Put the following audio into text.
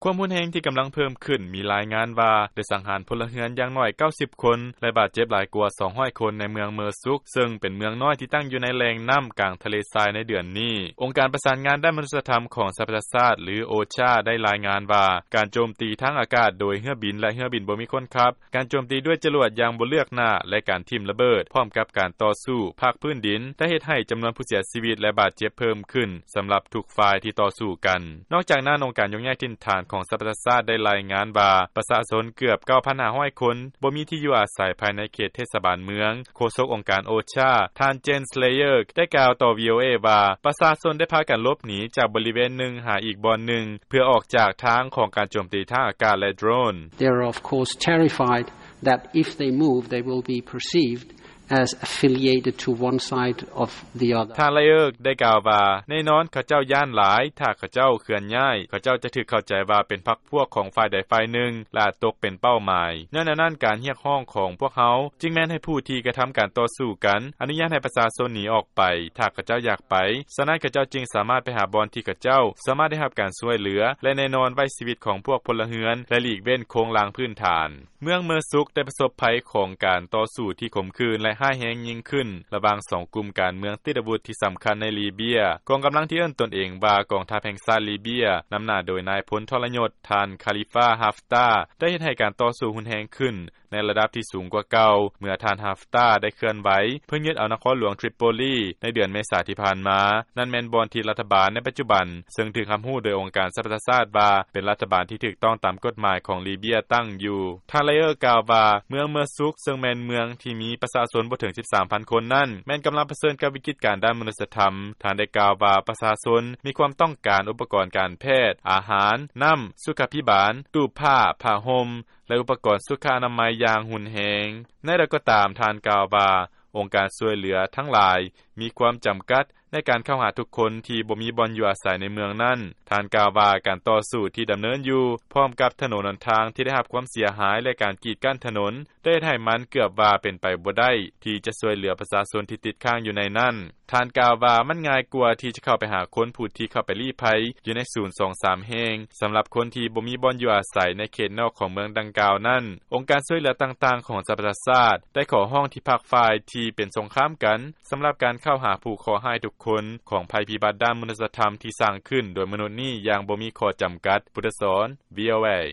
ຄວາມຮຸນແຮງທີ່ກຳລັງເພີ່ມຂຶ້ນ ມີລາຍງານວ່າ ໄດ້ສັງຫານພົນລະເຮືອນຢ່າງໜ້ອຍ 90 ຄົນ ແລະບາດເຈັບຫຼາຍກວ່າ 200 ຄົນ ໃນເມືອງເມີຊຸກ ເຊິ່ງເປັນເມືອງນ້ອຍທີ່ຕັ້ງຢູ່ໃນແຫຼ່ງນໍ້າກາງທະເລຊາຍໃນເດືອນນີ້. ອົງການປະສານງານດ້ານມະນຸດສະທຳຂອງສະຫະປະຊາຊາດ ຫຼື OCHA ໄດ້ລາຍງານວ່າ ການໂຈມຕີທາງອາກາດໂດຍເຮືອບິນ ແລະເຮືອບິນບໍ່ມີຄົນຂັບ, ການໂຈມຕີດ້ວຍຈະຫຼວດຢ່າງບໍ່ເລືອກໜ້າ ແລະການຖິ້ມລະເບີດ ພ້ອມກັບການຕໍ່ສູ້ພາກພື້ນດິນ ໄດ້ເຮັດໃຫ້ຈຳນວນຜູ້ເສຍຊີວິດ ແລະບາດເຈັບເພີ່ມຂຶ້ນ ສຳລັບທຸກຝ່າຍທີ່ຕໍ່ສູ້ກັນ. ນອກຈາກນັ້ນ, ອົງການຍົກຍ້າຍຖິ່ນຖານຂອງສະຫະປະຊາຊາດໄດ້ລາຍງານວ່າ ປະຊາຊົນເກືອບ 9,500 ຄົນ ບໍ່ມີທີ່ຢູ່ອາໄສພາຍໃນເຂດເທດສະບານເມືອງ. ໂຄສົກອົງການ OCHA ທ່ານ Jens Leyerk ໄດ້ກ່າວຕໍ່ VOA ວ່າ ປະຊາຊົນໄດ້ພາກັນຫຼົບໜີຈາກບໍລິເວນໜຶ່ງຫາອີກບ່ອນໜຶ່ງ ເພື່ອອອກຈາກທາງຂອງການໂຈມຕີທາງອາກາດ ແລະໂດຣນ. They are of course terrified that if they move, they will be perceived as affiliated to one side of the other. ທ່ານ Leyerk ໄດ້ກ່າວວ່າ ແນ່ນອນເຂົາເຈົ້າຢ້ານຫຼາຍ ຖ້າເຂົາເຈົ້າເຄື່ອນຍ້າຍ ເຂົາເຈົ້າຈະຖືກເຂົ້າໃຈວ່າເປັນພັກພວກຂອງຝ່າຍໃດຝ່າຍໜຶ່ງ ແລະອາດຕົກເປັນເປົ້າໝາຍ. ຍ້ອນແນວນັ້ນ ການຮຽກຮ້ອງຂອງພວກເຮົາ ຈຶ່ງແມ່ນໃຫ້ຜູ້ທີ່ກະທຳການຕໍ່ສູ້ກັນ ອະນຸຍາດໃຫ້ປະຊາຊົນໜີອອກໄປ ຖ້າເຂົາເຈົ້າຢາກໄປ. ສະນັ້ນ ເຂົາເຈົ້າຈຶ່ງສາມາດໄປຫາບ່ອນທີ່ເຂົາເຈົ້າສາມາດໄດ້ຮັບການຊ່ວຍເຫຼືອ ແລະແນ່ນອນໄວ້ຊີວິດຂອງພວກພົນລະເຮືອນ ແລະຫຼີກເວັ້ນໂຄງລ່າງພື້ນຖານ. ເມືອງເມີຊຸກໄດ້ປະສົບໄພຂອງການຕໍ່ສູ້ທີ່ຂົມຂືນ ແລະຮ້າຍແຮງຍິ່ງຂຶ້ນ ລະຫວ່າງສອງກຸ່ມການເມືອງຕິດອາວຸດທີ່ສຳຄັນໃນລີເບຍ. ກອງກຳລັງທີ່ເອີ້ນຕົນເອງວ່າກອງທັບແຫ່ງຊາດລີເບຍ ນຳໜ້າໂດຍນາຍພົນທໍລະຍົດ ທ່ານ Khalifa Haftar ໄດ້ເຮັດໃຫ້ການຕໍ່ສູ້ຮຸນແຮງຂຶ້ນ ໃນລະດັບທີ່ສູງກວ່າເກົ່າ ເມື່ອທ່ານ Haftar ໄດ້ເຄື່ອນໄຫວເພື່ອຍຶດເອົານະຄອນຫຼວງ Tripoli ໃນເດືອນເມສາທີ່ຜ່ານມາ. ນັ້ນແມ່ນບ່ອນທີ່ລັດຖະບານໃນປັດຈຸບັນ ເຊິ່ງຖືກຮັບຮູ້ໂດຍອົງການສະຫະປະຊາຊາດວ່າ ເປັນລັດຖະບານທີ່ຖືກຕ້ອງຕາມກົດໝາຍຂອງລີເບຍຕັ້ງຢູ່. ທ່ານ Leyerk ກ່າວວ່າ ເມືອງເມີຊຸກ ເຊິ່ງແມ່ນເມືອງທີ່ມີປະຊາຊົນບໍ່ເຖິງ 13,000 ຄົນນັ້ນ ແມ່ນກຳລັງປະເຊີນກັບວິກິດການດ້ານມະນຸດສະທຳ. ທ່ານໄດ້ກ່າວວ່າ ປະຊາຊົນມີຄວາມຕ້ອງການອຸປະກອນການແພດ, ອາຫານ, ນໍ້າ, ສຸຂາພິບານ, ຕູ້ຜ້າ, ຜ້າຫົ່ມ ແລະອຸປະກອນສຸຂະອະນາໄມຢ່າງຮຸນແຮງ. ແນວໃດກໍຕາມ, ທ່ານກ່າວວ່າ ອົງການຊ່ວຍເຫຼືອທັງຫຼາຍມີຄວາມຈຳກັດໃນການເຂົ້າຫາທຸກຄົນທີ່ບໍ່ມີບ່ອນຢູ່ອາໄສໃນເມືອງນັ້ນ. ທ່ານກ່າວວ່າ ການຕໍ່ສູ້ທີ່ດຳເນີນຢູ່ ພ້ອມກັບຖະໜົນຫົນທາງທີ່ໄດ້ຮັບຄວາມເສຍຫາຍ ແລະການກີດກັ້ນຖະໜົນ ໄດ້ເຮັດໃຫ້ມັນເກືອບວ່າເປັນໄປບໍ່ໄດ້ທີ່ຈະຊ່ວຍເຫຼືອປະຊາຊົນທີ່ຕິດຄ້າງຢູ່ໃນນັ້ນ. ທ່ານກ່າວວ່າ ມັນງ່າຍກວ່າທີ່ຈະເຂົ້າໄປຫາຄົນຜູ້ທີ່ເຂົ້າໄປລີ້ໄພຢູ່ໃນສູນສອງສາມແຫ່ງ ສຳລັບຄົນທີ່ບໍ່ມີບ່ອນຢູ່ອາໄສໃນເຂດນອກຂອງເມືອງດັ່ງກ່າວນັ້ນ. ອົງການຊ່ວຍເຫຼືອຕ່າງໆຂອງສະຫະປະຊາຊາດ ໄດ້ຂໍຮ້ອງທີ່ພາກຝ່າຍທີ່ເປັນສົງຄາມກັນ ສຳລັບການເຂົ້າຫາຜູ້ເຄາະຮ້າຍທຸກຄົນຂອງໄພພິບັດດ້ານມະນຸດສະທຳທີ່ສ້າງຂຶ້ນໂດຍມະນຸດນີ້ຢ່າງບໍ່ມີຂໍ້ຈຳກັດ. ພຸດທະສອນ VOA.